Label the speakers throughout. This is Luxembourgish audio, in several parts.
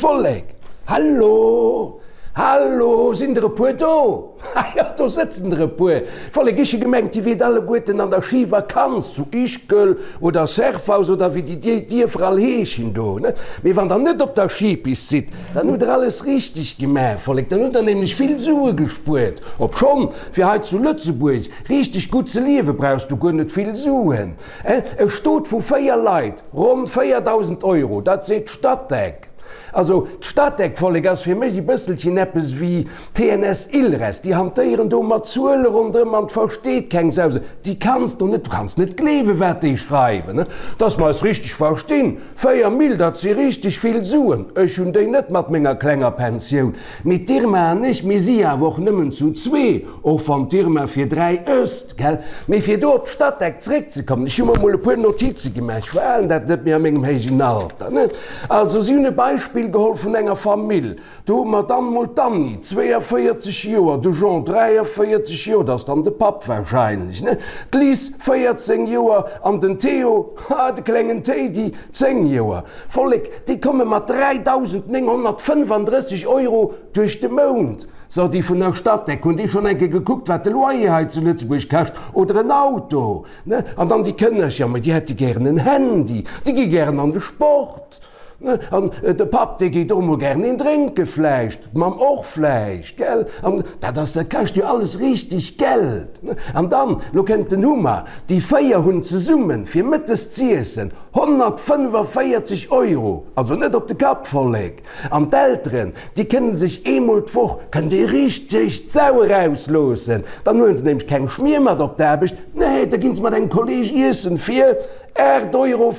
Speaker 1: Vollek? Hallo? Hallo? Sinn der e puer do? Ha jo, do sëtzen der e puer. Vollek, ech hu gemengt, dir wiert alleguerten an der Schivakanz zu Ischgl oder Serfaus oder wéi déi Dierfer all heeschen do, ne? Mee wann der net op der Schipist sidd, dann hutt der alles richteg gemaach, Vollek, dann hutt der nämlech vill Sue gespuert. Obschonn, fir hei zu Lëtzebuerg richteg gutt ze liewe brauchs du guer net vill Suen. E Stot vu 4 Leit, ronn 4.000 Euro, dat seet d'Statec. Also d'Statec, Vollek, ass fir mech e bësselchen eppes wéi TNS Ilres, déi hantéieren do mat Zuele ronderëm an d'versteet keng Sau se. Déi kanns du net, du kanns net gleewen, wat déi schreiwen, dass mer eis richteg verstinn. 4 Mille, dat si richteg vill Suen. Ech hunn déi net mat menger klenger Pensioun. Mee d'Irma an ech, mir si awer och nëmmen zu zwee, och wann d'Irma fir 3 ësst, gell? Mee fir do op d'Statec zréckzekommen, ech hu mer mol e puer Notize gemaach, ech verhalen dat net méi a mengem héijen Alter, ne? Also, si hunn e Beispill geholl vun enger Famill, Do hu mer dann mol d'Anni, 42 Joer, de Jean, 43 Joer, dat ass dann de Papp wahrscheinlech, ne? D'Liz, 14 Joer, an den Theo, ha, de klengen Téidi, 10 Joer. Vollek, déi komme mat 3.935 Euro duerch de Mount. So, déi vun der Statec, hunn déi schonn eng Kéier gekuckt, wat de Loyer hei zu Lëtzebuerg kascht oder en Auto, ne? An dann déi Kënnercher, ma déi hätte gären en Handy, déi gi gären an de Sport. An de Papp, dee geet och emol gären een drénke vläicht, d'Mamm och vläicht, gell? An dat ass, dat kascht jo alles richteg Geld. An dann, lo kënnt den Hummer, déi 4 hunn zesummen, fir mëttes z'iessen, 145 Euro, also net op de Kapp, Vollek. An d'Elteren, déi kënne sech eemol d'Woch, kënnen déi richteg d'Sau erausloossen, dann huelen se nämlech keng Schmier mat op d'Aarbecht, nee, da ginn se mat engem Kolleeg iessen fir 8,40 Euro!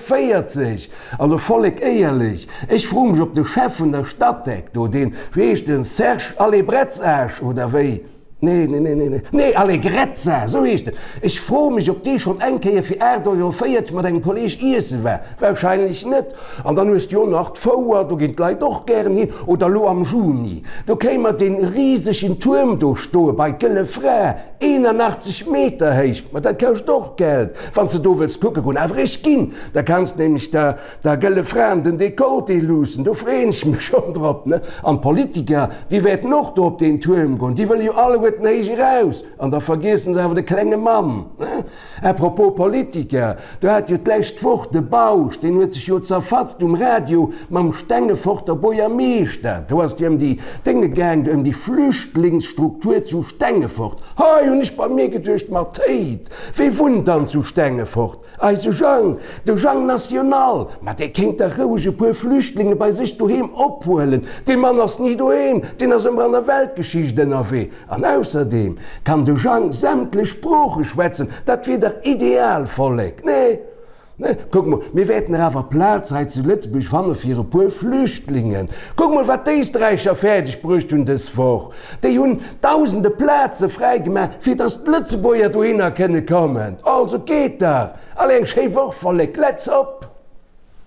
Speaker 1: Also Vollek, éierlech, ech froe mech op de Chef vun der Statec do, deen, wéi heescht en, Serge Allebretzasch oder wéi? Nee, nee, nee, nee, nee, Allegrezza, esou heescht en, ech froe mech op dee schonn eng Kéier fir 8,40 Euro mat engem Kolleg iesse war. Wahrscheinlech net. An dann hues de jo nach d'Fouer, do ginn d'Leit och gären hin. Oder elo am Juni, do kréie mer dee risegen Tuerm do stoe bei d'Gëlle Fra, 81 Meter héich, ma dat kascht och Geld, wann s de do wëlls kucke goen. Awer ech ginn, da kanns de nämlech der der Gëlle Fra an den Dekolleté luussen, do freeën ech mech schonn drop, ne? An d'Politiker, déi wäerten och do op deen Tuerm goen, déi wëlle jo alleguerten héich eraus, an da vergiessen se awer de klenge Mann, ne? À propos Politiker, do hat jo d'lescht Woch de Bausch, deen huet sech jo zerfatzt um Radio mam Stengeforter Buergermeeschter, do ass et jo ëm déi Dénge gaang, ëm déi Flüchtlingsstruktur zu Stengefort. Hei hunn ech bei mir geduecht, ma Théid, wee wunnt dann zu Stengefort? Eise Jang, de Jang National, ma dee kéint dach roueg e puer Flüchtlinge bei sech doheem ophuelen, dee Mann ass ni doheem, deen ass ëmmer an der Weltgeschicht ënnerwee. An ausserdeem kann de Jang sämtlech Sprooche schwätzen, dat wier dach ideal, Vollek, nee? Nee, kuck mol, mir wäerten der awer Plaz hei zu Lëtzebuerg fanne fir e puer Flüchtlingen. Kuck mol, wat d'Éisträicher fäerdeg bruecht hunn dës Woch. Déi hunn dausende Plaze fräi gemaach, fir datt d'Lëtzebuerger dohinner kënne kommen. Also geet dach! Allez, eng schéi Woch, Vollek, let's op!